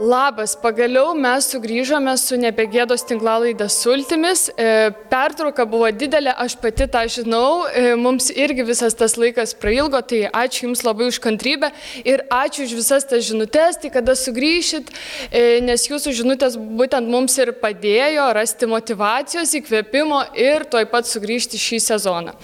Labas, pagaliau mes sugrįžome su Nebegėdos tinklalaidės sultimis. Pertrauka buvo didelė, aš pati tą žinau, mums irgi visas tas laikas prailgo, tai ačiū Jums labai už kantrybę ir ačiū už visas tas žinutės, tai kada sugrįšit, nes Jūsų žinutės būtent mums ir padėjo rasti motyvacijos, įkvėpimo ir tuoj pat sugrįžti šį sezoną.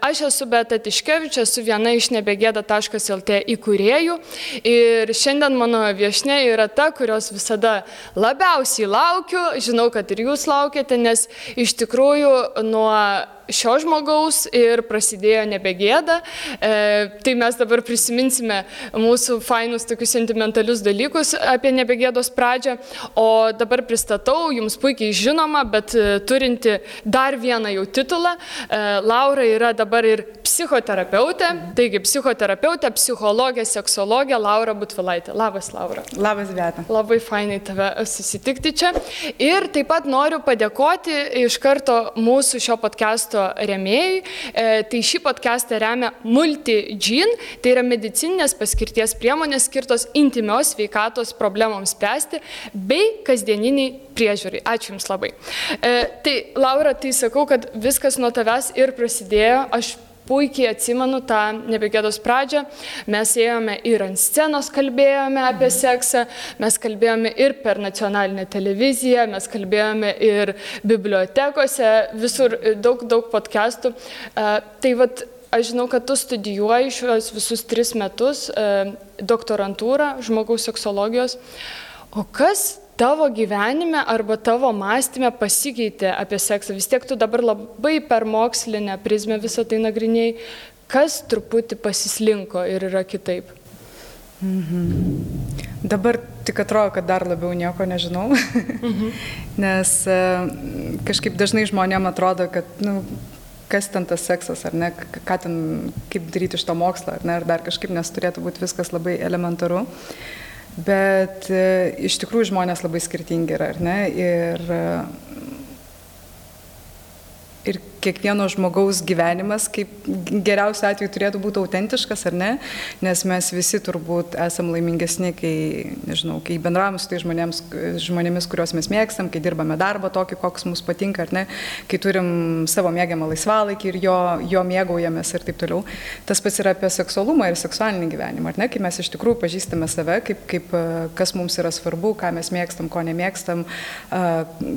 Aš esu Beata Tiškevič, esu viena iš nebegėda.lt įkūrėjų ir šiandien mano viešnia yra ta, kurios visada labiausiai laukiu, žinau, kad ir jūs laukiate, nes iš tikrųjų nuo šio žmogaus ir prasidėjo Nebegėda. Tai mes dabar prisiminsime mūsų fainus tokius sentimentalius dalykus apie Nebegėdos pradžią, o dabar pristatau jums puikiai žinoma, bet turinti dar vieną jau titulą. Laura yra dabar ir psichoterapeutė, taigi psichoterapeutė, psichologė, seksologė Laura Butvilaitė. Labas, Laura. Labas, Beata. Labai fainai tave susitikti čia. Ir taip pat noriu padėkoti iš karto mūsų šio podcast'o rėmėjai. Tai šį podcastą remia MultiGene, tai yra medicininės paskirties priemonės skirtos intymios sveikatos problemoms spręsti bei kasdieniniai priežiūrai. Ačiū Jums labai. Tai Laura, tai sakau, kad viskas nuo tavęs ir prasidėjo. Aš puikiai atsimenu tą Nebegėdos pradžią. Mes ėjome ir ant scenos kalbėjome apie seksą, mes kalbėjome ir per nacionalinę televiziją, mes kalbėjome ir bibliotekose, visur daug podcastų. Tai vat, aš žinau, kad tu studijuoji šios visus 3 metus doktorantūrą žmogaus seksologijos. O kas tavo gyvenime arba tavo mąstyme pasikeitė apie seksą? Vis tiek tu dabar labai per mokslinę prizmę visą tai nagrinėjai. Kas truputį pasislinko ir yra kitaip? Dabar tik atrodo, kad dar labiau nieko nežinau, nes kažkaip dažnai žmonėm atrodo, kad kas ten tas seksas, ar ne, ką ten, kaip daryti iš to mokslą, ar ne, ar dar kažkaip, nes turėtų būti viskas labai elementaru. Bet iš tikrųjų žmonės labai skirtingi yra, ar ne? Ir kiekvieno žmogaus gyvenimas, kaip geriausiu atveju turėtų būti autentiškas, ar ne? Nes mes visi turbūt esam laimingesni, kai bendravame su tai žmonėmis, kuriuos mes mėgstam, kai dirbame darbą tokį, koks mums patinka, ar ne? Kai turim savo mėgiamą laisvalaikį ir jo mėgaujamės ir taip toliau. Tas pats yra apie seksualumą ir seksualinį gyvenimą, ar ne? Kai mes iš tikrųjų pažįstame save, kas mums yra svarbu, ką mes mėgstam, ko nemėgstam,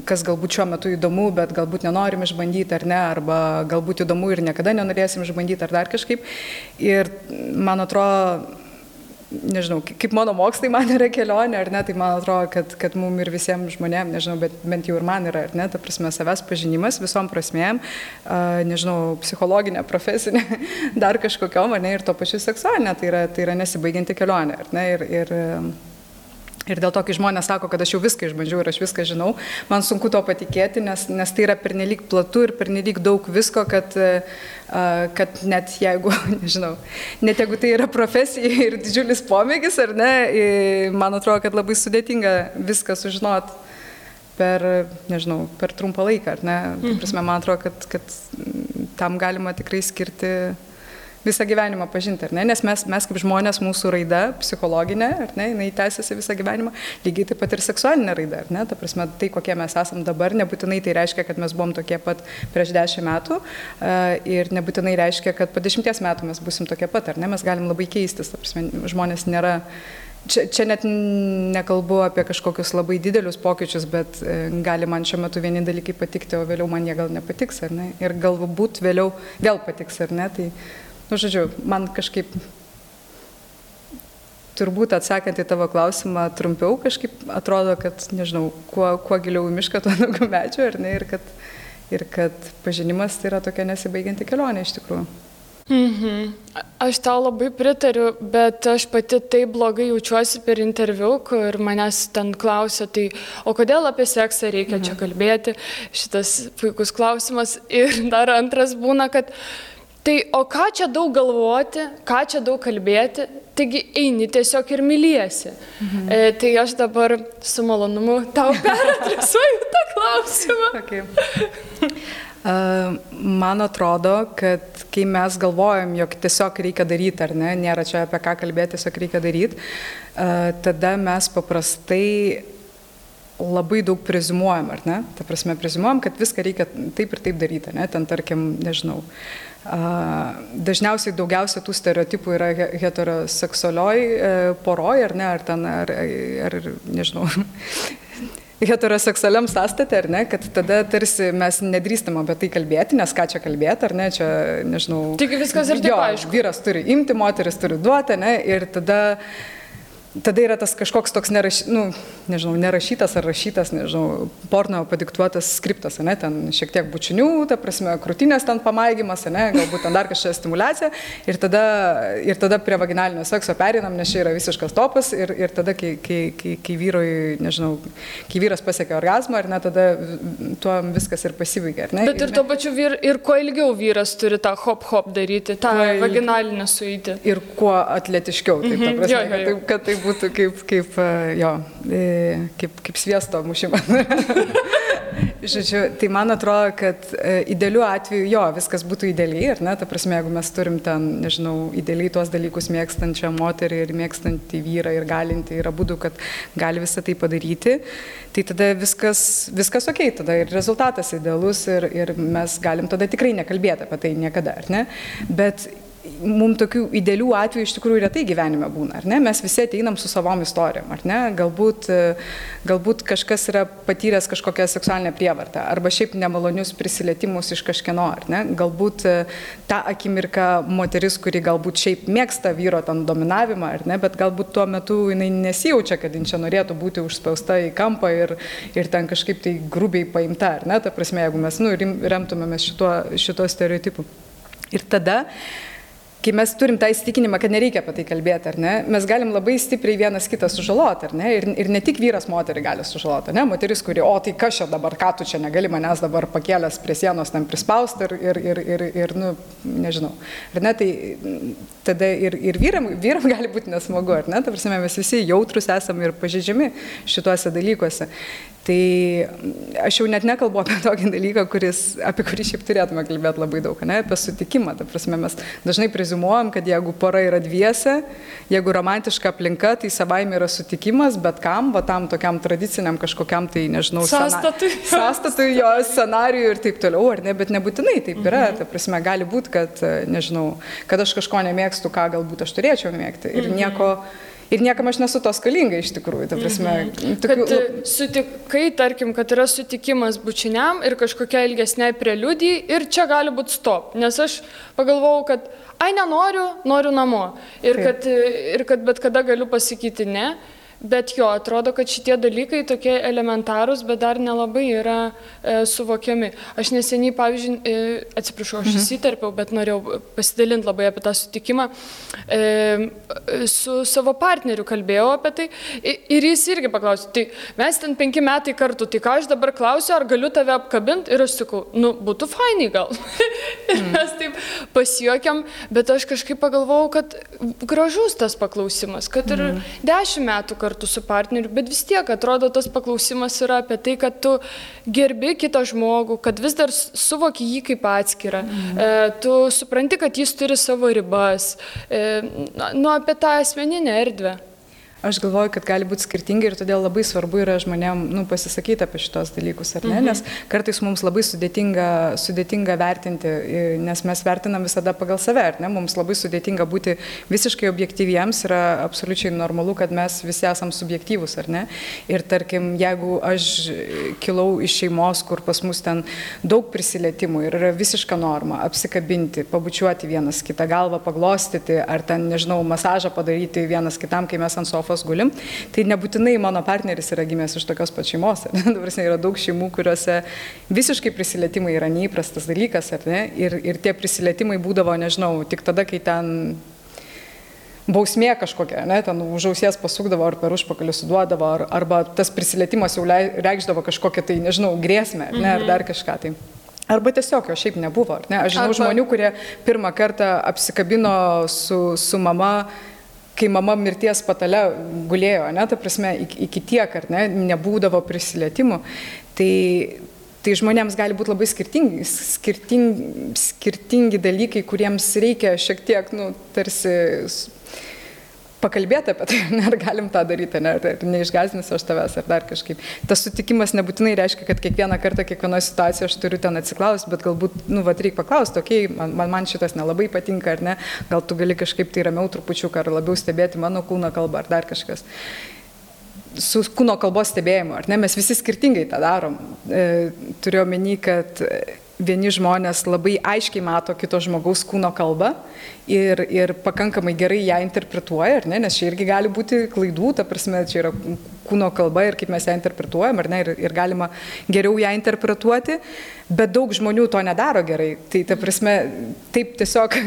kas galbūt šiuo metu įdomu, bet galbūt nenorim išbandyti, ar ne, arba galbūt įdomu ir niekada nenorėsim išbandyti ar dar kažkaip. Ir man atrodo, nežinau, kaip mano mokslai man yra kelionė, ar ne, tai man atrodo, kad mums ir visiems žmonėms, nežinau, bet bent jau ir man yra, ar ne, ta prasme, savęs pažinimas visom prasmėm, nežinau, psichologinė, profesinė, dar kažkokiom, ar ne, ir to pačiu seksualinė, tai yra nesibaigianti kelionė, ar ne, ir dėl to, kai žmonės sako, kad aš jau viską išbandžiau ir aš viską žinau, man sunku to patikėti, nes tai yra pernelyg platu ir pernelyg daug visko, kad net jeigu, nežinau, net jeigu tai yra profesija ir didžiulis pomėgis, ar ne, man atrodo, kad labai sudėtinga viską sužinot per trumpą laiką, ar ne. Prasme, man atrodo, kad tam galima tikrai skirti visą gyvenimą pažinti, ar ne? Nes mes kaip žmonės, mūsų raida psichologinė, ar ne, jinai tęsiasi visą gyvenimą, lygiai taip pat ir seksualinė raida, ar ne? Ta prasme, tai kokie mes esam dabar, nebūtinai tai reiškia, kad mes buvom tokie pat prieš 10 metų ir nebūtinai reiškia, kad po 10 metų mes būsim tokie pat, ar ne? Mes galim labai keistis, ta prasme, žmonės nėra. Čia net nekalbu apie kažkokius labai didelius pokyčius, bet gali man šiuo metu vieni dalykai patikti, o vėliau man jie gal nepatiks, ar ne? Ir galbūt vėliau vėl patiks, ar ne? Tai žodžiu, man kažkaip, turbūt atsakant į tavo klausimą trumpiau, kažkaip atrodo, kad, nežinau, kuo giliau į mišką, tuo daugiau medžių, ar ne, ir kad pažinimas tai yra tokia nesibaigianti kelionė iš tikrųjų. Aš tau labai pritariu, bet aš pati taip blogai jaučiuosi per interviu, kur manęs ten klausia, tai o kodėl apie seksą reikia čia kalbėti, šitas puikus klausimas. Ir dar antras būna, kad tai o ką čia daug galvoti, ką čia daug kalbėti, taigi eini tiesiog ir myliesi. Tai aš dabar su malonumu tau peradresuoju tą klausimą. Okay. Man atrodo, kad kai mes galvojam, jog tiesiog reikia daryti, ar ne, nėra čia apie ką kalbėti, tiesiog reikia daryti, tada mes paprastai labai daug preziumuojam, ar ne? Ta prasme, preziumuojam, kad viską reikia taip ir taip daryti, ne? Ten, tarkim, nežinau. Dažniausiai daugiausia tų stereotipų yra heteroseksualioj poroj, ar ne? Ar ten, ar nežinau. Heteroseksualiam sąstate, ar ne, kad tada tarsi mes nedrįstam apie tai kalbėti, nes ką čia kalbėti, ar ne, čia, nežinau. Tik viskas ir taip aišku. Vyras turi imti, moteris turi duoti, ne, ir tada yra tas kažkoks toks nerašytas ar rašytas, nežinau, porno padiktuotas skriptas, ne, ten šiek tiek bučinių, ta prasme, krūtinės ten pamaigymas, ne, galbūt ten dar kažkokia stimulacija ir tada prie vaginalinio sekso pereinam, nes čia yra visiškas topas ir tada, kai vyrui, nežinau, kai vyras pasiekia orgazmą, ar ne, tada tuo viskas ir pasibaigia, ar ne? Bet ir tuo pačiu ir kuo ilgiau vyras turi tą hop daryti, tą vaginalinę sueitį. Ir kuo atletiškiau, taip, ta prasme, kad tai būtų kaip sviesto mušimas. Žodžiu, tai man atrodo, kad idealiu atveju, viskas būtų idealiai, ar ne, ta prasme, jeigu mes turim ten, nežinau, idealiai tuos dalykus mėgstančią moterį ir mėgstantį vyrą ir galinti, yra būdų, kad gali visą tai padaryti, tai tada viskas okei, tada ir rezultatas idealus ir mes galim tada tikrai nekalbėti apie tai niekada, ar ne, bet mums tokių idealių atvejų iš tikrųjų retai gyvenime būna, ar ne? Mes visi ateinam su savom istorijom, ar ne? Galbūt kažkas yra patyręs kažkokią seksualinę prievartą, arba šiaip nemalonius prisilietimus iš kažkieno, ar ne? Galbūt tą akimirką moteris, kuri galbūt šiaip mėgsta vyro ten dominavimą, ar ne? Bet galbūt tuo metu jinai nesijaučia, kad jin čia norėtų būti užspausta į kampą ir ten kažkaip tai grubiai paimta, ar ne? Ta prasme, jeigu mes remtumėmės šito stereotipu. Ir tada, kai mes turim tą įsitikinimą, kad nereikia apie tai kalbėti, ar ne, mes galim labai stipriai vienas kitą sužaloti, ar ne, ir ne tik vyras moterį gali sužaloti, ne, moteris, kuri, tai kas čia dabar, ką tu čia negali manęs dabar pakėlęs prie sienos ten prispausti ir nežinau, ar ne, tai tada ir vyram gali būti nesmagu, ar ne, ta prasme, mes visi jautrus esame ir pažeidžiami šituose dalykuose. Tai aš jau net nekalbu apie tokį dalyką, apie kurį šiaip turėtume kalbėti labai daug, ne, apie sutikimą. Ta prasme, mes dažnai preziumuojam, kad jeigu pora yra dviese, jeigu romantiška aplinka, tai savaime yra sutikimas, bet kam, va tam tokiam tradiciniam kažkokiam, tai nežinau, sąstatui, jo scenarijui ir taip toliau, ar ne, bet nebūtinai taip yra. Ta prasme, gali būti, kad, nežinau, kad aš kažko nemėgstu, ką galbūt aš turėčiau mėgti ir niekam aš nesu to skolinga iš tikrųjų, ta prasme. Kad sutikai, tarkim, kad yra sutikimas bučiniam ir kažkokia ilgesnė preliudijai ir čia gali būti stop, nes aš pagalvojau, kad noriu namo ir kad bet kada galiu pasakyti ne. Bet atrodo, kad šitie dalykai tokie elementarūs, bet dar nelabai yra suvokiami. Aš neseniai, pavyzdžiui, atsiprašau, aš įsiterpiau, bet norėjau pasidalinti labai apie tą sutikimą. Su savo partneriu kalbėjau apie tai ir jis irgi paklausė, tai mes ten 5 metai kartu, tai ką aš dabar klausiu, ar galiu tave apkabinti? Ir aš sakau, būtų fainai gal. Ir mes taip pasijuokiam, bet aš kažkaip pagalvojau, kad gražus tas paklausimas, kad ir 10 metų kartu su partneriu, bet vis tiek atrodo tas paklausimas yra apie tai, kad tu gerbi kitą žmogų, kad vis dar suvoki jį kaip atskirą, tu supranti, kad jis turi savo ribas, apie tą asmeninę erdvę. Aš galvoju, kad gali būti skirtingai ir todėl labai svarbu yra žmonėm pasisakyti apie šitos dalykus, ar ne? Nes kartais mums labai sudėtinga vertinti, nes mes vertinam visada pagal save, ar ne? Mums labai sudėtinga būti visiškai objektyviems, yra absoliučiai normalu, kad mes visi esam subjektyvūs, ar ne? Ir tarkim, jeigu aš kilau iš šeimos, kur pas mus ten daug prisilietimų ir yra visiška norma apsikabinti, pabučiuoti vienas kitą, galvą paglostyti, ar ten, nežinau, masažą padaryti vienas kitam, kai mes ant sofos gulim, tai nebūtinai mano partneris yra gimęs iš tokios pat šeimos. Dabar yra daug šeimų, kuriuose visiškai prisilietimai yra neįprastas dalykas, ar ne? Ir tie prisilietimai būdavo, nežinau, tik tada, kai ten bausmė kažkokia, ne? Ten už ausies pasukdavo ar per užpakalį suduodavo, arba tas prisilietimas jau reikšdavo kažkokią tai, nežinau, grėsmę, ne? Ar dar kažką tai. Arba tiesiog jo šiaip nebuvo, ar ne? Aš žinau žmonių, kurie pirmą kartą apsikabino su mama, kai mama mirties patale gulėjo, ne, ta prasme, iki tiek, ar ne, nebūdavo prisilietimų, tai Tai žmonėms gali būti labai skirtingi dalykai, kuriems reikia šiek tiek, tarsi pakalbėti apie tai, ar galim tą daryti, ar neišgąsdinsiu aš tavęs, ar dar kažkaip. Tas sutikimas nebūtinai reiškia, kad kiekvieną kartą, kiekvienoje situacijoje aš turiu ten atsiklausti, bet galbūt, reikia paklausti, okei, man šitas nelabai patinka, ar ne, gal tu gali kažkaip tai ramiau trupučiuką, ar labiau stebėti mano kūno kalbą, ar dar kažkas. Su kūno kalbos stebėjimu, ar ne, mes visi skirtingai tą darom. Turiu omeny, kad vieni žmonės labai aiškiai mato kito žmogaus kūno kalbą ir pakankamai gerai ją interpretuoja, ar ne, nes čia irgi gali būti klaidų, ta prasme, čia yra kūno kalba ir kaip mes ją interpretuojam, ar ne, ir galima geriau ją interpretuoti, bet daug žmonių to nedaro gerai. Tai, ta prasme, taip tiesiog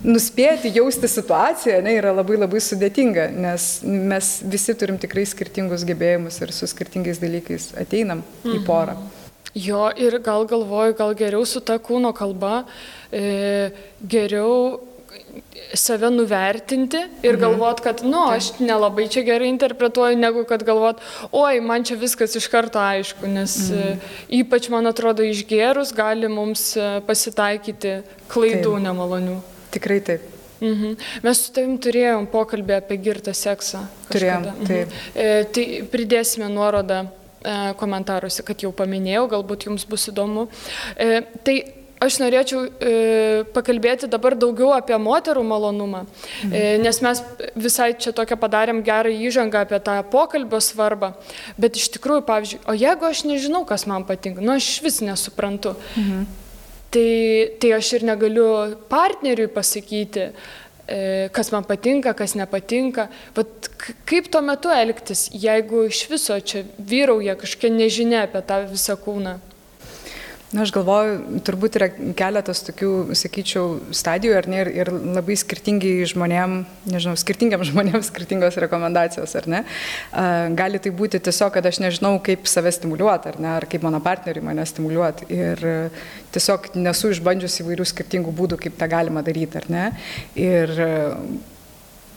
nuspėti, jausti situaciją, ne, yra labai labai sudėtinga, nes mes visi turim tikrai skirtingus gebėjimus ir su skirtingais dalykais ateinam į porą. Jo, ir gal galvoju, gal geriau su ta kūno kalba, geriau save nuvertinti ir galvot, kad, aš nelabai čia gerai interpretuoju, negu kad galvot, oi, man čia viskas iš karto aišku, nes ypač, man atrodo, išgėrus gali mums pasitaikyti klaidų nemalonių. Tikrai taip. Mes su tavim turėjom pokalbį apie girtą seksą. Turėjom, taip. Tai pridėsime nuorodą komentaruose, kad jau paminėjau, galbūt jums bus įdomu. Tai aš norėčiau pakalbėti dabar daugiau apie moterų malonumą, nes mes visai čia tokią padarėm gerą įžangą apie tą pokalbio svarbą, bet iš tikrųjų, pavyzdžiui, o jeigu aš nežinau, kas man patinka, aš vis nesuprantu, tai aš ir negaliu partneriui pasakyti, kas man patinka, kas nepatinka. Vat kaip tuo metu elgtis, jeigu iš viso čia vyrauja kažkokia nežinia apie tą visą kūną? Aš galvoju, turbūt yra keletas tokių, sakyčiau, stadijų, ar ne, ir labai skirtingiam žmonėms skirtingos rekomendacijos, ar ne. Gali tai būti tiesiog, kad aš nežinau, kaip save stimuliuoti, ar ne, ar kaip mano partneriui mane stimuliuoti. Ir tiesiog nesu išbandžius įvairių skirtingų būdų, kaip tą galima daryti, ar ne. Ir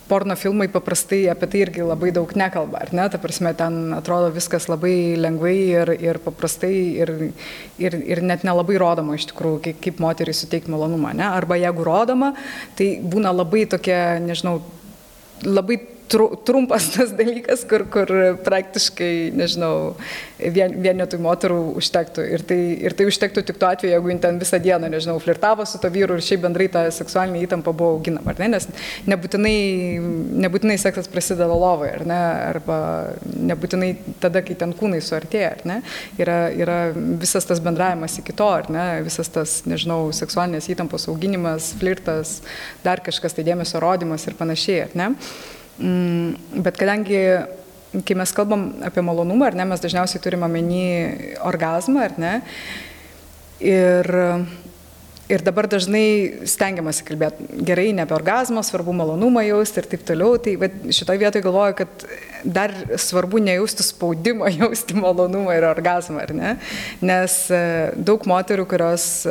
porno filmai paprastai apie tai irgi labai daug nekalba, ar ne? Ta prasme, ten atrodo viskas labai lengvai ir paprastai ir net nelabai rodoma iš tikrųjų, kaip moteriai suteikti malonumą, ne? Arba jeigu rodoma, tai būna labai tokia, nežinau, labai trumpas tas dalykas, kur praktiškai, nežinau, vienetui moterų užtektų. Ir tai užtektų tik tuo atveju, jeigu jin ten visą dieną, nežinau, flirtavo su to vyru ir šiaip bendrai ta seksualinė įtampa buvo auginama, ar ne? Nes nebūtinai seksas prasideda lovoje, ar ne? Arba nebūtinai tada, kai ten kūnai suartėja, ar ne? Yra visas tas bendravimas iki to, ar ne? Visas tas, nežinau, seksualinės įtampos auginimas, flirtas, dar kažkas, tai dėmesio rodymas ir panašiai, ar ne? Bet kadangi, kai mes kalbam apie malonumą, ar ne, mes dažniausiai turime omeny orgazmą, ar ne, ir dabar dažnai stengiamasi kalbėti gerai ne apie orgazmą, svarbu malonumą jausti ir taip toliau, tai šitoje vietoje galvoju, kad dar svarbu nejausti spaudimą, jausti malonumą ir orgazmą, ar ne, nes daug moterų, kurios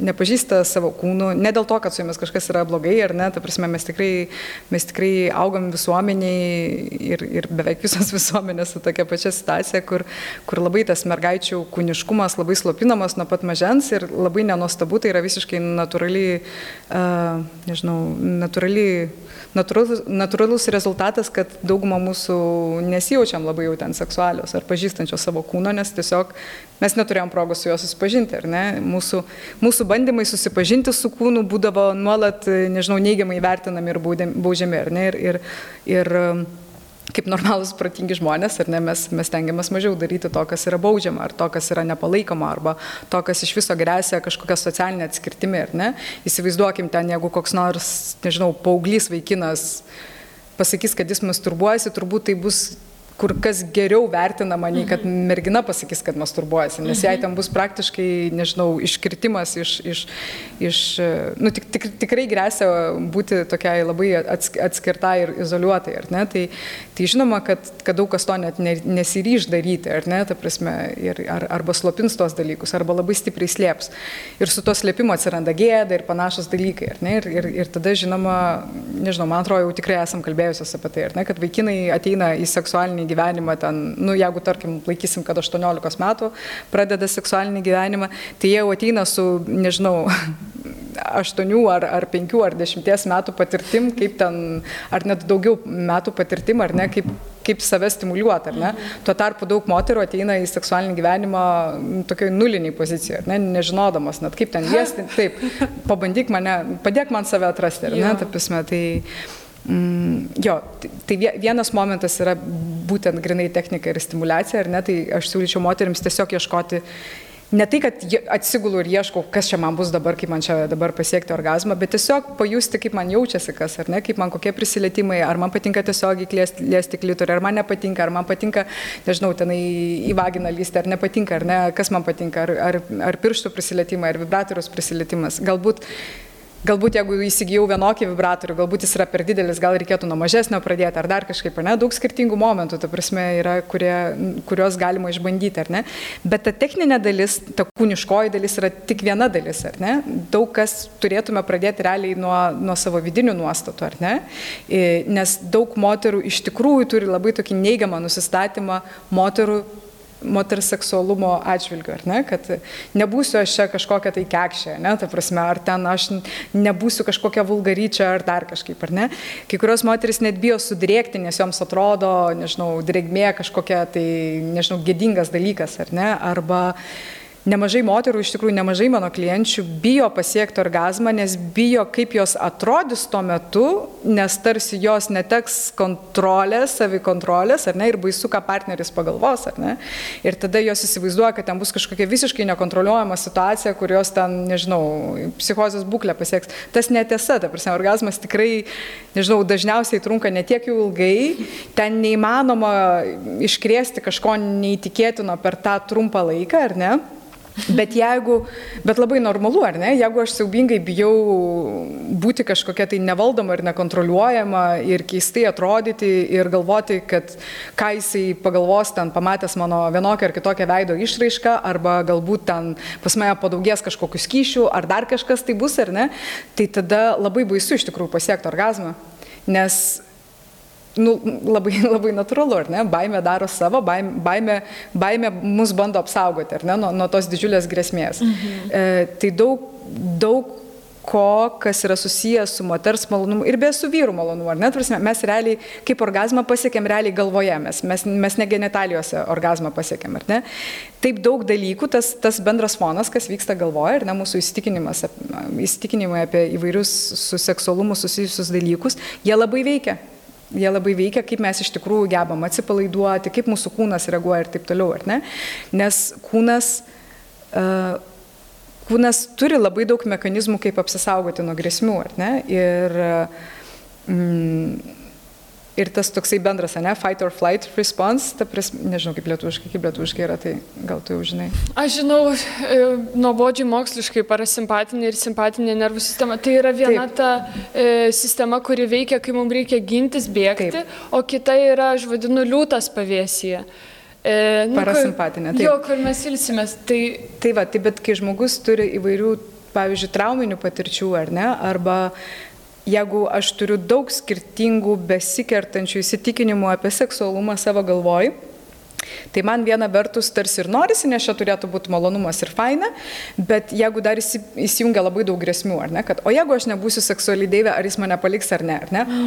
nepažįsta savo kūnų, ne dėl to, kad su jomis kažkas yra blogai, ar ne, ta prasme, mes tikrai augam visuomeniai ir beveik visos visuomenės su tokia pačia situacija, kur labai tas mergaičių kūniškumas labai slopinamas nuo pat mažens ir labai nenuostabu, tai yra visiškai natūralus rezultatas, kad dauguma mūsų nesijaučiam labai jau ten seksualios ar pažįstančios savo kūno, nes tiesiog mes neturėjom progos su juo susipažinti, ar ne? Mūsų bandymai susipažinti su kūnu būdavo nuolat, nežinau, neigiamai vertinami ir baudžiami, ar ne? Ir kaip normalūs protingi žmonės, ar ne, mes tengiamės mažiau daryti to, kas yra baudžiama, ar to, kas yra nepalaikoma, arba to, kas iš viso gresia kažkokia socialinė atskirtimi, ar ne. Įsivaizduokim ten, jeigu koks nors, nežinau, paauglys vaikinas pasakys, kad jis masturbuojasi, turbūt tai bus kur kas geriau vertinama, nei kad mergina pasakys, kad masturbuojasi, nes jai ten bus praktiškai, nežinau, iškirtimas tikrai gresia būti tokiai labai atskirtai ir izoliuotai, ar ne? Tai žinoma, kad daug kas to net nesiryš daryti, ar ne, ta prasme, arba slopins tos dalykus, arba labai stipriai slėps. Ir su to slėpimu atsiranda gėda ir panašus dalykai, ar ne? Ir tada, žinoma, nežinau, man atrodo, jau tikrai esam kalbėjusios apie tai, ar ne, kad vaikinai ateina į seksualinį gyvenimą ten, nu, jeigu, tarkim, laikysim, kad 18 metų pradeda seksualinį gyvenimą, tai jie jau ateina su, nežinau, 8 ar 5 ar 10 metų patirtim, kaip ten, ar net daugiau metų patirtim, ar ne, kaip save stimuliuoti, ar ne. Tuo tarpu daug moterų ateina į seksualinį gyvenimą tokioj nuliniai pozicijoje, ar ne, nežinodamas, net kaip ten liesti, taip, pabandyk mane, padėk man save atrasti, ar ne, ta prasme, tai... Jo, tai vienas momentas yra būtent grinai technika ir stimuliacija, ar ne, tai aš siūlyčiau moterims tiesiog ieškoti, ne tai, kad atsigulu ir ieškau, kas čia man bus dabar, kaip man čia dabar pasiekti orgazmą, bet tiesiog pajusti, kaip man jaučiasi kas, ar ne, kaip man kokie prisilietimai, ar man patinka tiesiog liesti klitorį, ar man nepatinka, ar man patinka, nežinau, tenai į vaginą lysti, ar nepatinka, ar ne, kas man patinka, ar pirštų prisilietimai, ar vibratoriaus prisilietimas. Galbūt jeigu įsigijau vienokį vibratorių, galbūt jis yra per didelis, gal reikėtų nuo mažesnio pradėti, ar dar kažkaip, ar ne, daug skirtingų momentų, ta prasme, yra, kurios galima išbandyti, ar ne. Bet ta techninė dalis, ta kūniškoji dalis yra tik viena dalis, ar ne. Daug kas turėtume pradėti realiai nuo savo vidinių nuostatų, ar ne. Nes daug moterų iš tikrųjų turi labai tokį neigiamą nusistatymą moters seksualumo atžvilgiu, ar ne, kad nebūsiu aš čia kažkokia tai kekšė, ne, ta prasme, ar ten aš nebūsiu kažkokia vulgaryčia, ar dar kažkaip, ar ne. Kai kurios moteris net bijo sudrėkti, nes joms atrodo, nežinau, drėgmė kažkokia tai, nežinau, gėdingas dalykas, ar ne, arba nemažai moterų, iš tikrųjų nemažai mano klienčių bijo pasiekti orgazmą, nes bijo, kaip jos atrodys tuo metu, nes tarsi jos neteks kontrolės, savikontrolės, ar ne, ir baisu, ką partneris pagalvos, ar ne. Ir tada jos įsivaizduoja, kad ten bus kažkokia visiškai nekontroliuojama situacija, kur jos ten, nežinau, psichozės būklę pasieks. Tas netiesa, ta prasme, orgazmas tikrai, nežinau, dažniausiai trunka netiek jau ilgai, ten neįmanoma iškrėsti kažko neįtikėtino per tą trumpą laiką, ar ne. Bet labai normalu, ar ne, jeigu aš siaubingai bijau būti kažkokia tai nevaldoma ir nekontroliuojama ir keistai atrodyti ir galvoti, kad ką jisai pagalvos ten pamatęs mano vienokią ar kitokią veido išraišką, arba galbūt ten pas mane padaugės kažkokių skyšių, ar dar kažkas tai bus, ar ne, tai tada labai baisu iš tikrųjų pasiekti orgazmą, nes labai, labai natūralu, ar ne? Baimė daro savo, baimė mus bando apsaugoti, ar ne, nuo tos didžiulės grėsmės. Tai daug ko, kas yra susijęs su moters malonumu ir be su vyrų malonumu, ar ne? Mes realiai, kaip orgazmą pasiekėm realiai galvoje, mes ne genitalijose orgazmą pasiekėm, ar ne? Taip daug dalykų, tas bendras fonas, kas vyksta galvoje, ir ne, mūsų įsitikinimai apie įvairius su seksualumu susijusius dalykus, jie labai veikia. Jie labai veikia, kaip mes iš tikrųjų gebam atsipalaiduoti, kaip mūsų kūnas reaguoja ir taip toliau, ar ne? Nes kūnas turi labai daug mechanizmų, kaip apsisaugoti nuo grėsmių, ar ne? Ir tas toksai bendras, ne, fight or flight response, nežinau, kaip lietuviškai yra, tai gal tu jau žinai. Aš žinau, nuobodžiai moksliškai parasimpatinė ir simpatinė nervų sistema, tai yra viena ta sistema, kuri veikia, kai mums reikia gintis, bėgti, taip. O kita yra, aš vadinu, liūtas pavėsyje. Parasimpatinė, taip. Jo, kur mes ilsimės. Tai va, tai bet kai žmogus turi įvairių, pavyzdžiui, trauminių patirčių, ar ne, arba jeigu aš turiu daug skirtingų besikertančių įsitikinimų apie seksualumą savo galvoj, tai man viena vertus tarsi ir norisi, nes čia turėtų būti malonumas ir faina, bet jeigu dar įsijungia labai daug grėsmių, ar ne, kad o jeigu aš nebūsiu seksualiai deivė, ar jis mane paliks ar ne,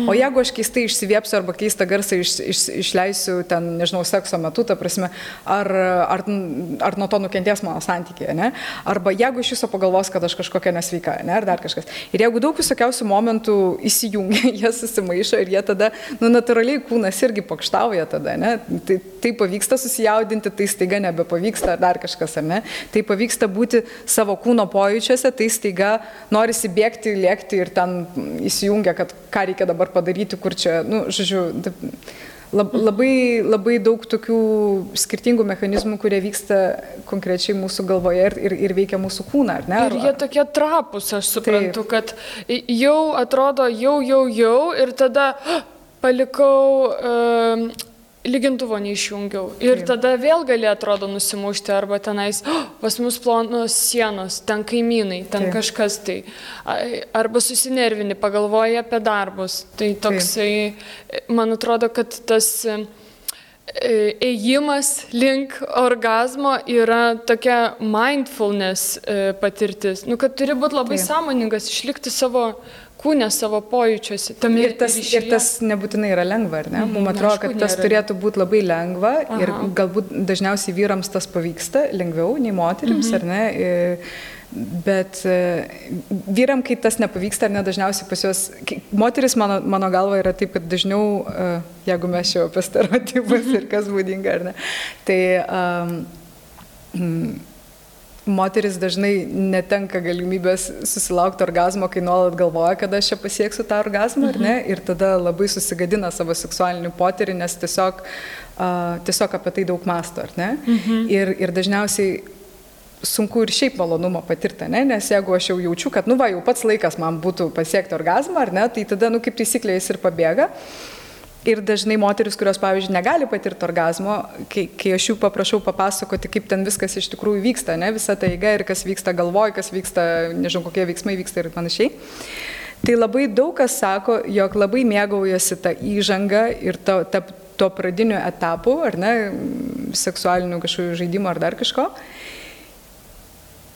o jeigu aš keistai išsiviepsiu arba keistą garsą išleisiu ten, nežinau, sekso metu, ta prasme, ar nuo to nukentės mano santykiai, ne, arba jeigu iš viso pagalvos, kad aš kažkokia nesveika, ne, ar dar kažkas. Ir jeigu daug visokiausių momentų įsijungia, jie susimaišo ir jie tada, natūraliai kūnas irgi pokštauja tada, ne, tai pavyksta susijaudinti, tai staiga nebepavyksta, ar dar kažkas, ar ne. Tai pavyksta būti savo kūno pojūčiuose, tai staiga norisi bėgti, lėkti ir ten įsijungia, kad ką reikia dabar padaryti, kur čia, žodžiu, labai daug tokių skirtingų mechanizmų, kurie vyksta konkrečiai mūsų galvoje ir veikia mūsų kūną, ar ne? Ir jie tokie trapus, aš suprantu, taip. Kad jau atrodo, jau ir tada palikau... lygintuvo neišjungiau. Ir taip. Tada vėl gali, atrodo, nusimušti, arba tenais, pas mus plonos sienos, ten kaimynai, ten taip. Kažkas tai. Arba susinervini, pagalvoji apie darbus. Tai toksai, taip. Man atrodo, kad tas ėjimas link orgazmo yra tokia mindfulness patirtis, nu, kad turi būti labai sąmoningas, išlikti savo kūne, savo pojūčiuose. Ir tas nebūtinai yra lengva, ar ne? Mums atrodo, kad tas turėtų būti labai lengva ir galbūt dažniausiai vyrams tas pavyksta lengviau nei moterims, ar ne? Bet vyram, kai tas nepavyksta, ar ne, dažniausiai pas juos, moteris mano galva yra taip, kad dažniau, jeigu mes čia apie stereotipus ir kas būdinga, ar ne, tai moteris dažnai netenka galimybės susilaukti orgazmo, kai nuolat galvoja, kad aš čia pasieksiu tą orgazmą, ar ne, ir tada labai susigadina savo seksualinį potyrį, nes tiesiog apie tai daug mąsto, ar ne, ir dažniausiai sunku ir šiaip malonumą patirti, ne? Nes jeigu aš jau jaučiu, kad, nu va, jau pats laikas man būtų pasiekti orgazmą, ar ne, tai tada, nu, kaip taisyklė, jis ir pabėga. Ir dažnai moteris, kurios, pavyzdžiui, negali patirti orgazmo, kai aš jų paprašau papasakoti, kaip ten viskas iš tikrųjų vyksta, ne, visa ta eiga ir kas vyksta galvoj, kas vyksta, nežinau, kokie veiksmai vyksta ir panašiai. Tai labai daug kas sako, jog labai mėgaujasi tą įžangą ir to pradinių etapų, ar ne, seksualinių kažkokių žaidimų ar dar kažko.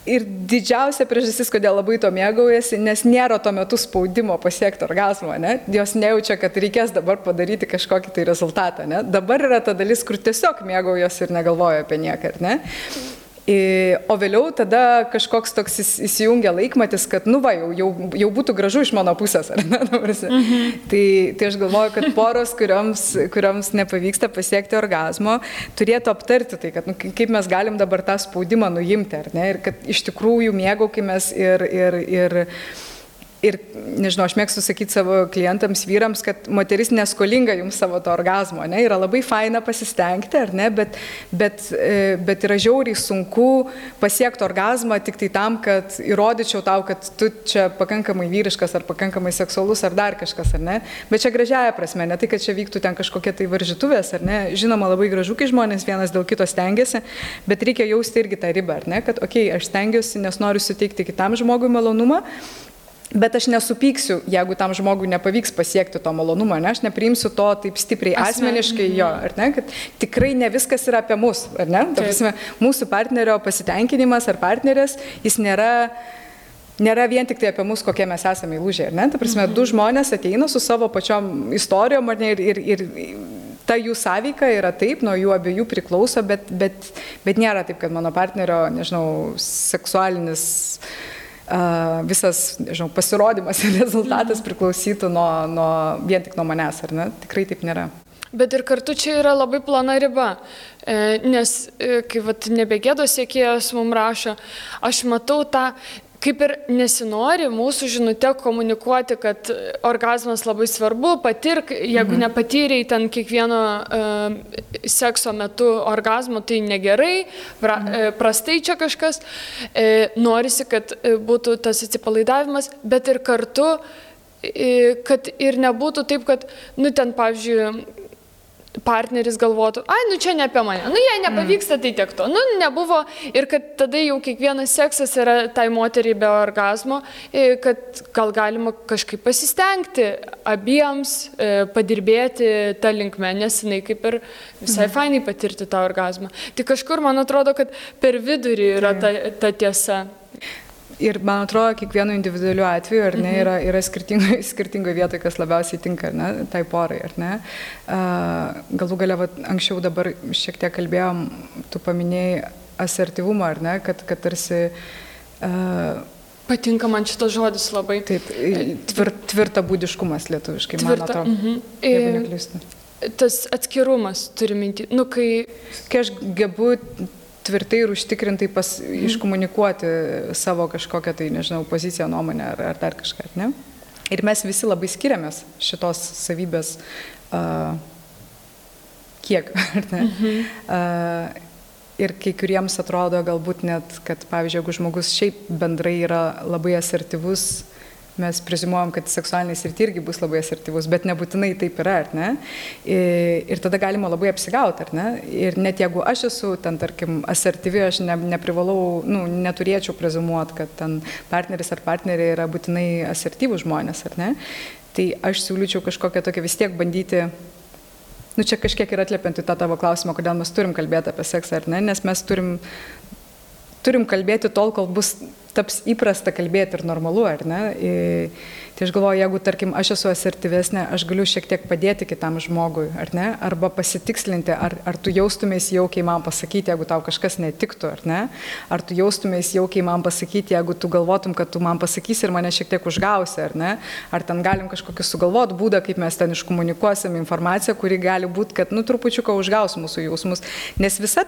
Ir didžiausia priežastis, kodėl labai to mėgaujasi, nes nėra tuo metu spaudimo pasiekti orgazmo, ne? Jos nejaučia, kad reikės dabar padaryti kažkokį tai rezultatą, ne? Dabar yra ta dalis, kur tiesiog mėgaujasi ir negalvoja apie nieką, ne? O vėliau tada kažkoks toks įsijungia laikmatis, kad, nu va, jau būtų gražu iš mano pusės, ar ne? Tai aš galvoju, kad poros, kurioms nepavyksta pasiekti orgazmo, turėtų aptarti tai, kad, nu, kaip mes galim dabar tą spaudimą nuimti, ar ne? Ir kad iš tikrųjų mėgaukimės ir, nežinau, aš mėgstu sakyti savo klientams, vyrams, kad moteris neskolinga jums savo to orgazmo, ne? Yra labai faina pasistengti, ar ne, bet yra žiauriai sunku pasiekti orgazmą tik tai tam, kad įrodyčiau tau, kad tu čia pakankamai vyriškas ar pakankamai seksualus ar dar kažkas, ar ne, bet čia gražiaja prasme, ne tai, kad čia vyktų ten kažkokie tai varžytuvės, ar ne, žinoma, labai gražu, kai žmonės vienas dėl kito stengiasi, bet reikia jausti irgi tą ribą, ar ne, kad, okei, aš stengiuosi, nes noriu suteikti kitam žmogui malonumą, bet aš nesupyksiu, jeigu tam žmogui nepavyks pasiekti to malonumo, ne? Aš nepriimsiu to taip stipriai asmeniškai jo, ar ne? Kad tikrai ne viskas yra apie mus, ar ne? Ta prasme, mūsų partnerio pasitenkinimas ar partnerės, jis nėra vien tik tai apie mus, kokie mes esame įlūžę, ar ne? Ta prasme, du žmonės ateina su savo pačiom istorijom, ar ne? Ir ta jų sąveika yra taip, nuo jų abiejų priklauso, bet nėra taip, kad mano partnerio, nežinau, seksualinis visas, nežinau, pasirodymas ir rezultatas priklausytų vien tik nuo manęs, ar ne? Tikrai taip nėra. Bet ir kartu čia yra labai plona riba, nes kai nebegėdos siekėjas mums rašo, aš matau tą, kaip ir nesinori mūsų žinute komunikuoti, kad orgazmas labai svarbu, patirk, jeigu nepatyrei ten kiekvieno sekso metu orgazmo, tai negerai, prastai čia kažkas, norisi, kad būtų tas atsipalaidavimas, bet ir kartu, kad ir nebūtų taip, kad, nu ten, pavyzdžiui, partneris galvotų, ai, nu čia ne apie mane, nu jei nepavyksta, tai tiek to, nu nebuvo ir kad tada jau kiekvienas seksas yra tai moteriai be orgazmo, kad gal galima kažkaip pasistengti abiems, padirbėti tą linkmę, nes jinai kaip ir visai fainai patirti tą orgazmą. Tai kažkur, man atrodo, kad per vidurį yra ta tiesa. Ir man atrodo, kiekvienu individualiu atveju, ar ne, yra skirtingoje vietoje, kas labiausiai tinka, ar ne, tai porai, ar ne. Galų galia, anksčiau dabar šiek tiek kalbėjom, tu paminėjai asertyvumą, ar ne, kad tarsi... Patinka man šitas žodis labai. Taip, tvirtabūdiškumas lietuviškai, man atrodo, jeigu neklystu. Tas atskirumas turi minti, nu kai aš gebu tvirtai ir užtikrintai iškomunikuoti savo kažkokią tai, nežinau, poziciją, nuomonę ar dar kažką, ne? Ir mes visi labai skiriamės šitos savybės kiek, ar ne? Ir kai kuriems atrodo galbūt net, kad, pavyzdžiui, jeigu žmogus šiaip bendrai yra labai asertyvus, mes prezimuojam, kad seksualiniai srity irgi bus labai asertyvus, bet nebūtinai taip yra, ar ne? Ir tada galima labai apsigauti, ar ne? Ir net jeigu aš esu ten, tarkim, asertyvi, aš neprivalau, nu, neturėčiau prezimuoti, kad ten partneris ar partnerė yra būtinai asertyvūs žmonės, ar ne? Tai aš siūlyčiau kažkokią tokią vis tiek bandyti, nu čia kažkiek ir atliepiant į tą tavo klausimą, kodėl mes turim kalbėti apie seksą, ar ne, nes mes turim kalbėti tol, kol taps įprasta kalbėti ir normalu, ar ne? Tai aš galvoju, jeigu, tarkim, aš esu asertyvesnė, aš galiu šiek tiek padėti kitam žmogui, ar ne? Arba pasitikslinti, ar tu jaustumės jaukiai man pasakyti, jeigu tau kažkas netiktų, ar ne? Ar tu jaustumės jaukiai man pasakyti, jeigu tu galvotum, kad tu man pasakysi ir mane šiek tiek užgausi, ar ne? Ar ten galim kažkokį sugalvot būdą, kaip mes ten iškomunikuosim informaciją, kuri gali būti, kad, nu, trupučiuką užgaus mūsų jausmus. Nes visa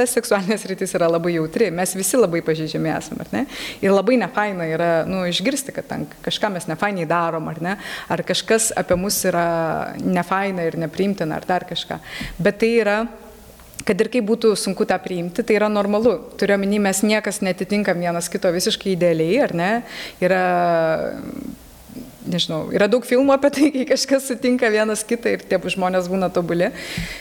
seksualinės rytis yra labai jautri, mes visi labai pažeidžiami esame, ar ne? Ir labai nefaina yra, nu, išgirsti, kad ten kažką mes nefainiai darom, ar ne? Ar kažkas apie mus yra nefaina ir nepriimtina, ar dar kažką. Bet tai yra, kad ir kaip būtų sunku tą priimti, tai yra normalu. Turiuomenį, mes niekas netitinkam vienas kito visiškai idealiai, ar ne? Nežinau, yra daug filmų apie tai, kai kažkas sutinka vienas kitą ir tie žmonės būna tobuli,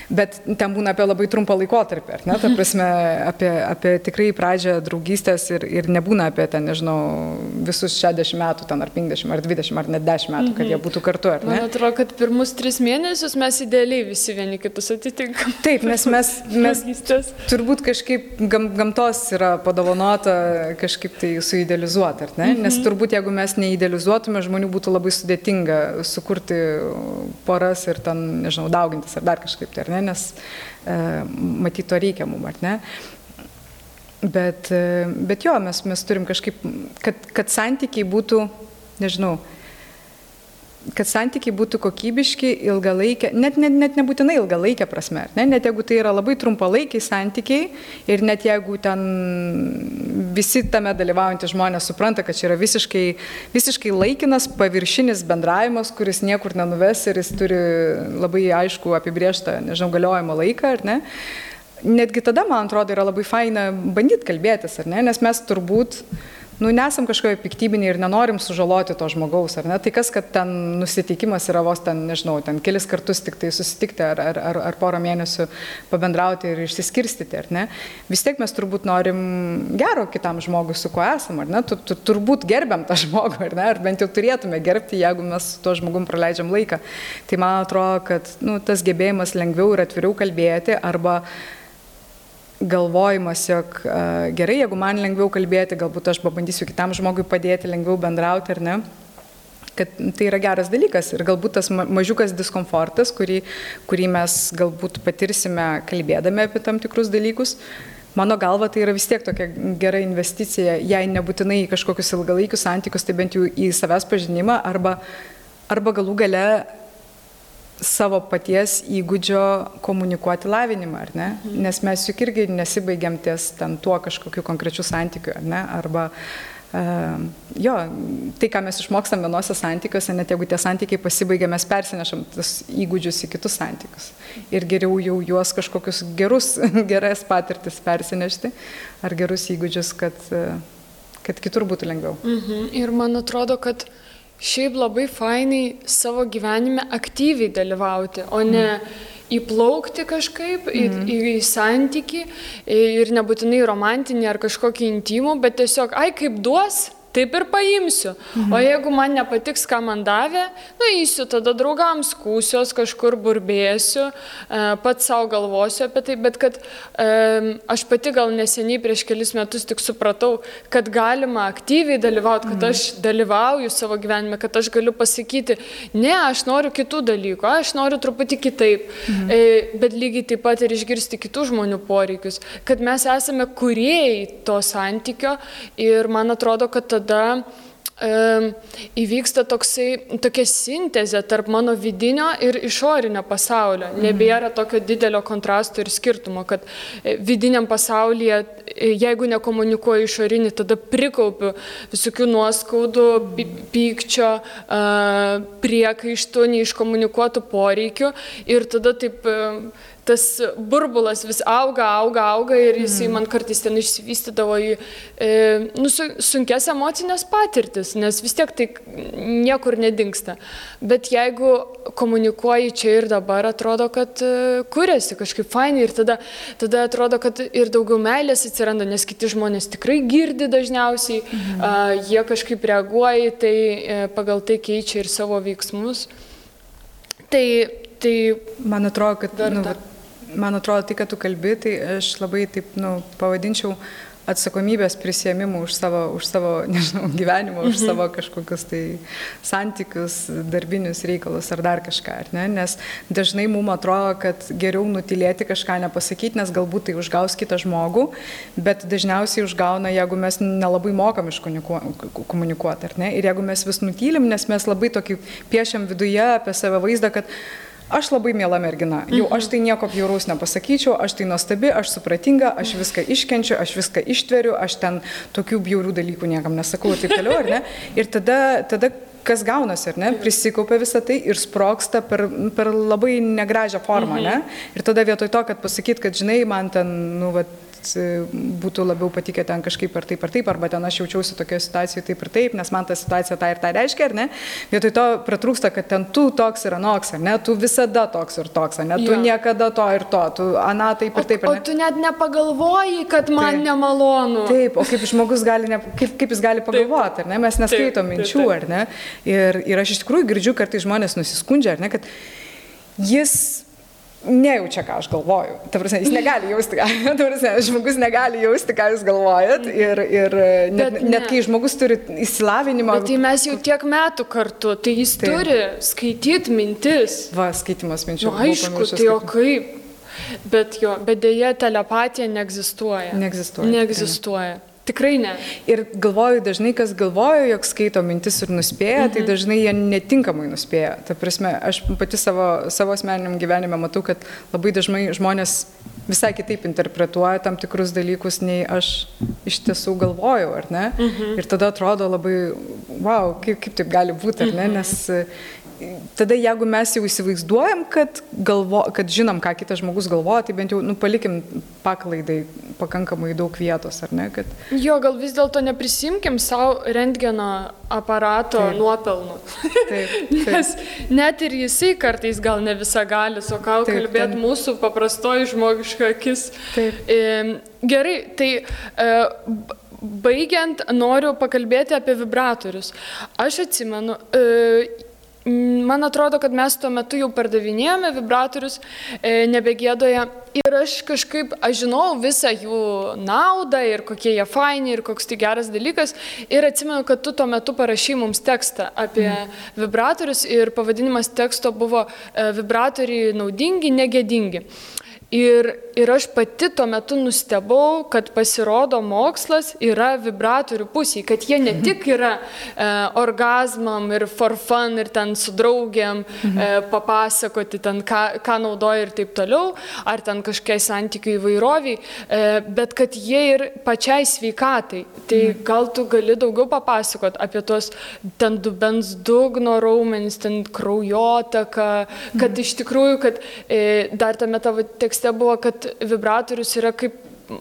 bet ten būna apie labai trumpą laikotarpį, ar ne? Ta prasme, apie tikrai pradžią draugystės ir nebūna apie ten, nežinau, visus 60 metų, ten ar 50, ar 20, ar net 10 metų, kad jie būtų kartu, ar ne? Man atrodo, kad pirmus 3 mėnesius mes idealiai visi vieni kitus atitinkam. Taip, nes mes turbūt kažkaip gamtos yra padovanota kažkaip tai suidealizuoti, ar ne? Nes turbūt jeigu mes neidealizuotume, žmonių būtų labai sudėtinga sukurti poras ir ten, nežinau, daugintis ar dar kažkaip tai, ar ne, nes matyt to reikia mum, ar ne. Bet jo, mes turim kažkaip, kad santykiai būtų, nežinau, kad santykiai būtų kokybiški, ilgalaikę, net nebūtinai ilgalaikę prasme, ne? Net jeigu tai yra labai trumpalaikiai santykiai ir net jeigu ten visi tame dalyvaujantys žmonės supranta, kad čia yra visiškai laikinas, paviršinis bendravimas, kuris niekur nenuves ir jis turi labai aišku apibrėžtą, nežinau, galiojimo laiką, ar ne? Netgi tada, man atrodo, yra labai faina bandyti kalbėtis, ar ne? Nes mes turbūt nesam kažkokie piktybiniai ir nenorim sužaloti to žmogaus, ar ne? Tai kas, kad ten nusiteikimas yra vos ten, nežinau, ten kelis kartus tik tai susitikti ar porą mėnesių pabendrauti ir išsiskirstyti, ar ne? Vis tiek mes turbūt norim gero kitam žmogui, su kuo esam, ar ne? Turbūt gerbiam tą žmogų, ar ne? Ar bent jau turėtume gerbti, jeigu mes su tuo žmogum praleidžiam laiką. Tai man atrodo, kad tas gebėjimas lengviau ir atviriau kalbėti arba galvojimas, jog gerai, jeigu man lengviau kalbėti, galbūt aš pabandysiu kitam žmogui padėti, lengviau bendrauti, ar ne, kad tai yra geras dalykas ir galbūt tas mažiukas diskomfortas, kurį mes galbūt patirsime kalbėdami apie tam tikrus dalykus, mano galva tai yra vis tiek tokia gera investicija, jei nebūtinai į kažkokius ilgalaikius santykius, tai bent jau į savęs pažinimą arba galų gale savo paties įgūdžio komunikuoti lavinimą, ar ne? Nes mes juk irgi nesibaigiam ties ten tuo kažkokiu konkrečiu santykiu, ar ne? Arba, tai, ką mes išmokstam vienose santykiuose, net jeigu tie santykiai pasibaigia, mes persinešam tas įgūdžius į kitus santykius. Ir geriau jau juos kažkokius geras patirtis persinešti, ar gerus įgūdžius, kad kitur būtų lengviau. Ir man atrodo, kad šiaip labai fainai savo gyvenime aktyviai dalyvauti, o ne įplaukti kažkaip į santykį ir nebūtinai romantinį ar kažkokį intimų, bet tiesiog, kaip duos, taip ir paimsiu. O jeigu man nepatiks, ką man davė, eisiu tada draugams, skūsiuos, kažkur burbėsiu, pats savo galvosiu apie tai, bet kad aš pati gal neseniai prieš kelis metus tik supratau, kad galima aktyviai dalyvauti, kad aš dalyvauju savo gyvenime, kad aš galiu pasakyti, ne, aš noriu kitų dalykų, aš noriu truputį kitaip, bet lygiai taip pat ir išgirsti kitų žmonių poreikius, kad mes esame kūrėjai to santykio ir man atrodo, kad tada įvyksta tokia sintezė tarp mano vidinio ir išorinio pasaulio. Nebėra tokio didelio kontrasto ir skirtumo, kad vidiniam pasaulyje, jeigu nekomunikuoju išorinį, tada prikaupiu visokių nuoskaudų, pykčio, priekaištų, neiškomunikuotų poreikių ir tada taip tas burbulas vis auga ir jisai man kartais ten išsivystydavo į sunkes emocinės patirtis, nes vis tiek tai niekur nedingsta. Bet jeigu komunikuoji čia ir dabar, atrodo, kad kuriasi kažkaip fainai ir tada atrodo, kad ir daugiau meilės atsiranda, nes kiti žmonės tikrai girdi dažniausiai, jie kažkaip reaguoja, tai pagal tai keičia ir savo veiksmus. Tai Tai man atrodo, kad, verta. man atrodo, tai, kad tu kalbi, tai aš labai taip, pavadinčiau atsakomybės prisėmimų už savo, nežinau, gyvenimą, už savo kažkokius tai santykius, darbinius reikalus ar dar kažką, ar ne? Nes dažnai mums atrodo, kad geriau nutilėti kažką nepasakyti, nes galbūt tai užgaus kitą žmogų, bet dažniausiai užgauna, jeigu mes nelabai mokam komunikuoti, ar ne? Ir jeigu mes vis nutylim, nes mes labai tokį piešiam viduje apie save vaizdą, kad aš labai miela mergina, jau aš tai nieko bjauraus nepasakyčiau, aš tai nuostabi, aš supratinga, aš viską iškenčiu, aš viską ištveriu, aš ten tokių bjaurių dalykų niekam nesakau ir taip toliau, ar ne? Ir tada kas gaunasi, ar ne? Prisikaupia visą tai ir sprogsta per labai negražią formą, ne? Ir tada vietoj to, kad pasakyt, kad žinai, man ten, būtų labiau patikę ten kažkaip ar taip, arba ten aš jaučiausi tokioje situacijoje taip ir taip, nes man ta situacija tą ir tą reiškia, ar ne? Vietoj to pratrūksta, kad ten tu toks ir anoks, ar ne? Tu visada toks ir toks, ar ne? Tu niekada to ir to, tu ana taip ir taip, ar ne? O tu net nepagalvoji, kad man nemalonu. Taip, o kaip žmogus gali, kaip jis gali pagalvoti, ar ne? Mes neskaitom minčių, ar ne? Ir aš iš tikrųjų girdžiu, kartais žmonės nusiskundžia, ar ne, kad jis nejaučia, ką aš galvoju. Ta prasme, jis negali jausti, žmogus negali jausti, ką jūs galvojat. Ir net kai žmogus turi išsilavinimą. Bet tai mes jau tiek metų kartu, tai jis turi skaityti mintis. Va, skaitimas minčių. Aišku, tai o kaip? Bet dėja telepatija neegzistuoja. Neegzistuoja. Tikrai ne. Ir galvoju, dažnai kas galvoja, jog skaito mintis ir nuspėja, tai dažnai jie netinkamai nuspėja. Ta prasme, aš pati savo asmeniniam gyvenime matau, kad labai dažnai žmonės visai kitaip interpretuoja tam tikrus dalykus, nei aš iš tiesų galvojau, ar ne? Ir tada atrodo labai, wow, kaip taip gali būti, ar ne? Nes tada jeigu mes jau įsivaizduojam, kad žinom, ką kitas žmogus galvoja, tai bent jau palikim paklaidai pakankamai daug vietos, ar ne? Jo, gal vis dėlto neprisimkim savo rentgeno aparato nuopelnų. Taip. Nes net ir jisai kartais gal ne visą gali, o ką kalbėt mūsų paprastoji žmogiška akis. Gerai, tai baigiant noriu pakalbėti apie vibratorius. Aš atsimenu, man atrodo, kad mes tuo metu jau pardavinėjome vibratorius nebegėdoje ir aš žinau visą jų naudą ir kokie jie faini ir koks tai geras dalykas ir atsimenu, kad tu tuo metu parašei mums tekstą apie vibratorius ir pavadinimas teksto buvo vibratoriai naudingi, negėdingi. Ir aš pati tuo metu nustebau, kad pasirodo mokslas yra vibratorių pusėje, kad jie ne tik yra orgazmam ir for fun ir ten su draugiam papasakoti, ten ką naudoja ir taip toliau, ar ten kažkokiai santykių įvairoviai, bet kad jie ir pačiai sveikatai. Tai gal tu gali daugiau papasakot apie tos ten dubens dugno raumenis, ten kraujotaką, kad iš tikrųjų, kad dar tame tavo tekste buvo, kad vibratorius yra kaip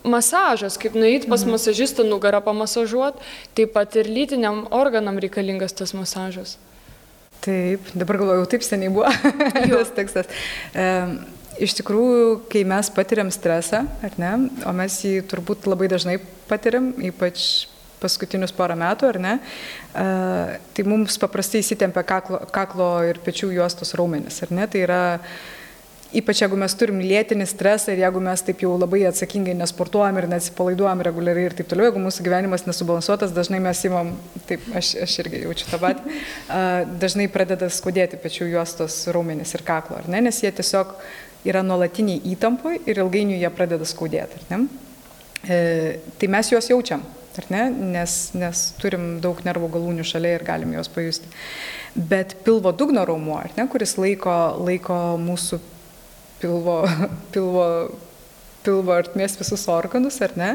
masažas, kaip nueiti pas masažistą nugarą pamasažuoti, taip pat ir lytiniam organam reikalingas tas masažas. Taip, dabar galvoju, taip seniai buvo tas tekstas. Iš tikrųjų, kai mes patiriam stresą, ar ne, o mes jį turbūt labai dažnai patiriam, ypač paskutinius porą metų, ar ne, tai mums paprastai įsitempia kaklo ir pečių juostos raumenis, ar ne, tai yra ypač jeigu mes turim lėtinį stresą ir jeigu mes taip jau labai atsakingai nesportuojam ir neatsipalaiduojam reguliariai ir taip toliau, jeigu mūsų gyvenimas nesubalansuotas, dažnai mes imam, taip, aš irgi jaučiu tą patį, dažnai pradeda skaudėti pečių juostos raumenis ir kaklo, ar ne, nes jie tiesiog yra nuolatiniai įtampoj ir ilgainiui jie pradeda skaudėti, ar ne. Tai mes juos jaučiam, ar ne, nes turim daug nervų galūnių šalia ir galim juos pajusti. Bet pilvo dugno raumuo, ar ne, kuris laiko mūsų pilvo artmės visus organus, ar ne?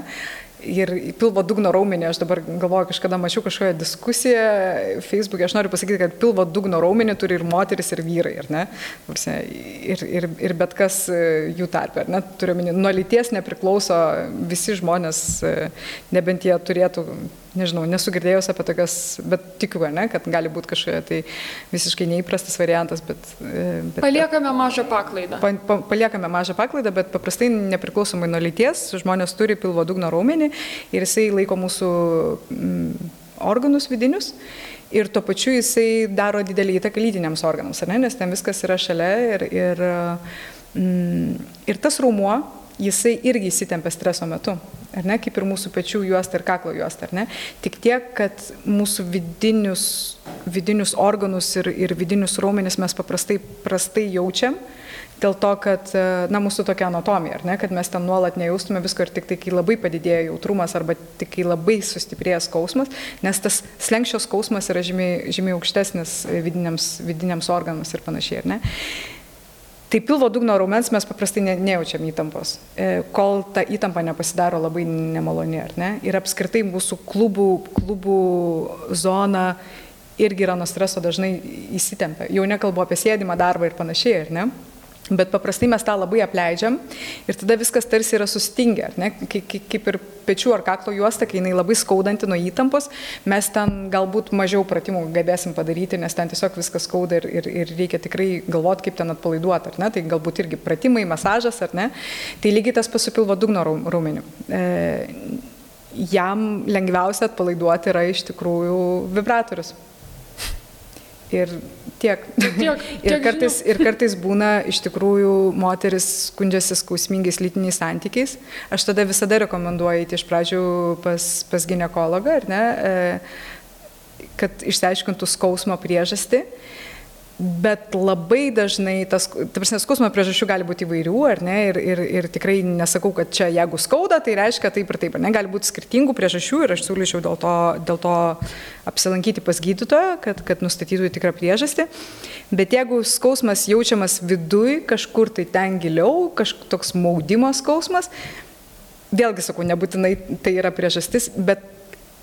Ir pilvo dugno raumenį, aš dabar galvoju, kažkada mačiau kažkokią diskusiją Facebook'e, aš noriu pasakyti, kad pilvo dugno raumenį turi ir moteris, ir vyrai, ar ne? Ir bet kas jų tarpe, ar ne? Turiu omeny, nuo lyties nepriklauso visi žmonės, nebent jie turėtų, nežinau, nesu girdėjus apie tokias, bet tikiu, ne, kad gali būti kažkokia tai visiškai neįprastas variantas, bet paliekame mažą paklaidą. Paliekame mažą paklaidą, bet paprastai nepriklausomai nuo lyties žmonės turi pilvo dugno raumenį ir jisai laiko mūsų organus vidinius ir tuo pačiu jisai daro didelį įtaką lytiniams organams, ar ne, nes ten viskas yra šalia ir tas raumuo, jisai irgi įsitempia streso metu, ar ne, kaip ir mūsų pečių juosta ir kaklo juosta, ar ne, tik tiek, kad mūsų vidinius organus ir vidinius raumenis mes prastai jaučiam, dėl to, kad, na, mūsų tokia anatomija, ar ne, kad mes ten nuolat nejaustume visko ir tik tai, kai labai padidėja jautrumas arba tik kai labai sustiprėja skausmas, nes tas slenkščio skausmas yra žymiai aukštesnis vidiniams organams ir panašiai, ar ne. Tai pilvo dugno raumens mes paprastai nejaučiam įtampos, kol ta įtampa nepasidaro labai nemaloni, ar ne. Ir apskritai mūsų klubų zona irgi yra nuo streso dažnai įsitempia. Jau nekalbu apie sėdimą darbą ir panašiai, ar ne. Bet paprastai mes tą labai apleidžiam ir tada viskas tarsi yra sustingę, ar ne? Kaip ir pečių ar kaklo juosta, kai jinai labai skaudanti nuo įtampos, mes ten galbūt mažiau pratimų galėsim padaryti, nes ten tiesiog viskas skauda ir reikia tikrai galvoti, kaip ten atpalaiduoti, ar ne? Tai galbūt irgi pratimai, masažas, ar ne? Tai lygiai tas pats su pilvo dugno raumeniu. Jam lengviausia atpalaiduoti yra iš tikrųjų vibratorius. Ir tiek. Ir kartais būna iš tikrųjų moteris skundžiasi skausmingais lytiniais santykiais. Aš tada visada rekomenduoju eiti iš pradžių pas ginekologą, ar ne, kad išsiaiškintų skausmo priežastį. Bet labai dažnai, skausmo priežasčių gali būti įvairių, ar ne, ir tikrai nesakau, kad čia jeigu skauda, tai reiškia taip ir taip, ar ne, gali būti skirtingų priežasčių ir aš siūlyčiau dėl to apsilankyti pas gydytoją, kad nustatytų tikrą priežastį. Bet jeigu skausmas jaučiamas viduj, kažkur tai ten giliau, toks maudimo skausmas, vėlgi sakau, nebūtinai tai yra priežastis, bet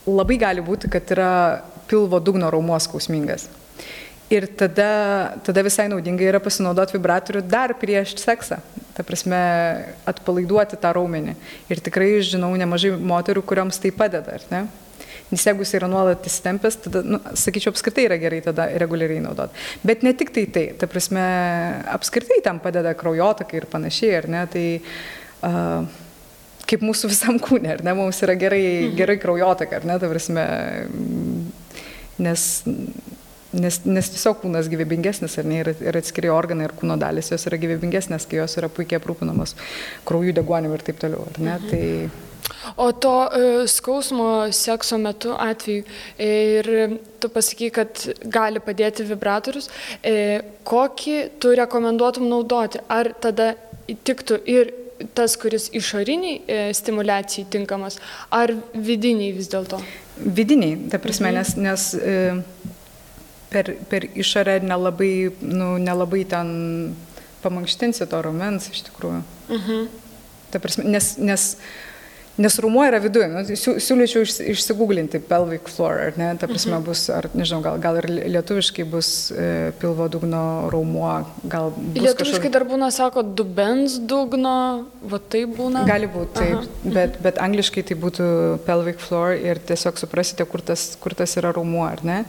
labai gali būti, kad yra pilvo dugno raumuo skausmingas. Ir tada visai naudingai yra pasinaudoti vibratorių dar prieš seksą. Ta prasme, atpalaiduoti tą raumenį. Ir tikrai žinau nemažai moterų, kurioms tai padeda, ar ne? Nes jeigu jis yra nuolat įsitempęs, tada, sakyčiau, apskritai yra gerai tada reguliariai naudoti. Bet ne tik tai, ta prasme, apskritai tam padeda kraujotakai ir panašiai, ar ne? Tai kaip mūsų visam kūne, ar ne? Mums yra gerai kraujotaka, ar ne? Ta prasme, nes tiesiog kūnas gyvybingesnis, ar ne, ir atskiri organai ir kūno dalis, jos yra gyvybingesnės, kai jos yra puikiai aprūpinamos kraujų deguonimi ir taip toliau, ar ne? Tai... O to skausmo sekso metu atveju, ir tu pasakai, kad gali padėti vibratorius, kokį tu rekomenduotum naudoti? Ar tada tiktų ir tas, kuris išoriniai stimuliacijai tinkamas, ar vidiniai vis dėlto? Vidiniai, ta prasme, nes per išorę nelabai ten pamankštinsi to raumens iš tikrųjų. Ta prasme, nes raumuo yra viduje. Siūlyčiau išsigūglinti pelvic floor, ar ne? Ta prasme bus, ar nežinau, gal ir lietuviškai bus pilvo dugno raumuo. Lietuviškai dar būna, sako, dubens dugno, va tai būna? Gali būti, taip, bet angliškai tai būtų pelvic floor ir tiesiog suprasite, kur tas yra raumuo, ar ne?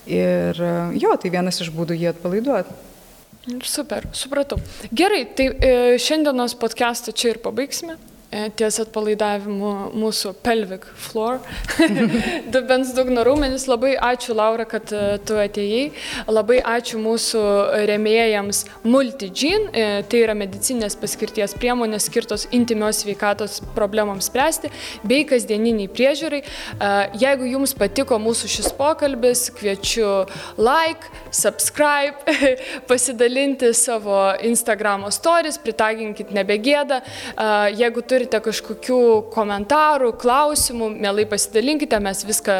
Ir jo, tai vienas iš būdų jį atpalaiduoti. Super, supratau. Gerai, tai šiandienos podcastą čia ir pabaigsime. Ties atpalaidavimu mūsų pelvic floor, dubens dugno raumenis. Labai ačiū, Laura, kad tu atėjai. Labai ačiū mūsų rėmėjams Multigene. Tai yra medicinės paskirties priemonės skirtos intymios sveikatos problemams spręsti bei kasdieniniai priežiūrai. Jeigu jums patiko mūsų šis pokalbis, kviečiu like, subscribe, pasidalinti savo Instagramo stories, pritaginkit nebegėda. Jeigu turite kažkokių komentarų, klausimų, mielai pasidalinkite, mes viską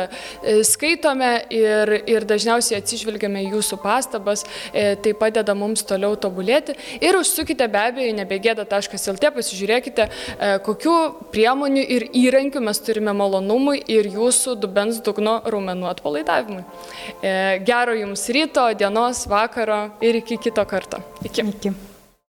skaitome ir dažniausiai atsižvelgiame jūsų pastabas, tai padeda mums toliau tobulėti. Ir užsukite be abejo nebegėda.lt, pasižiūrėkite, kokių priemonių ir įrankių mes turime malonumui ir jūsų dubens dugno raumenų atpalaidavimui. Gero jums ryto, dienos, vakaro ir iki kito karto. Iki.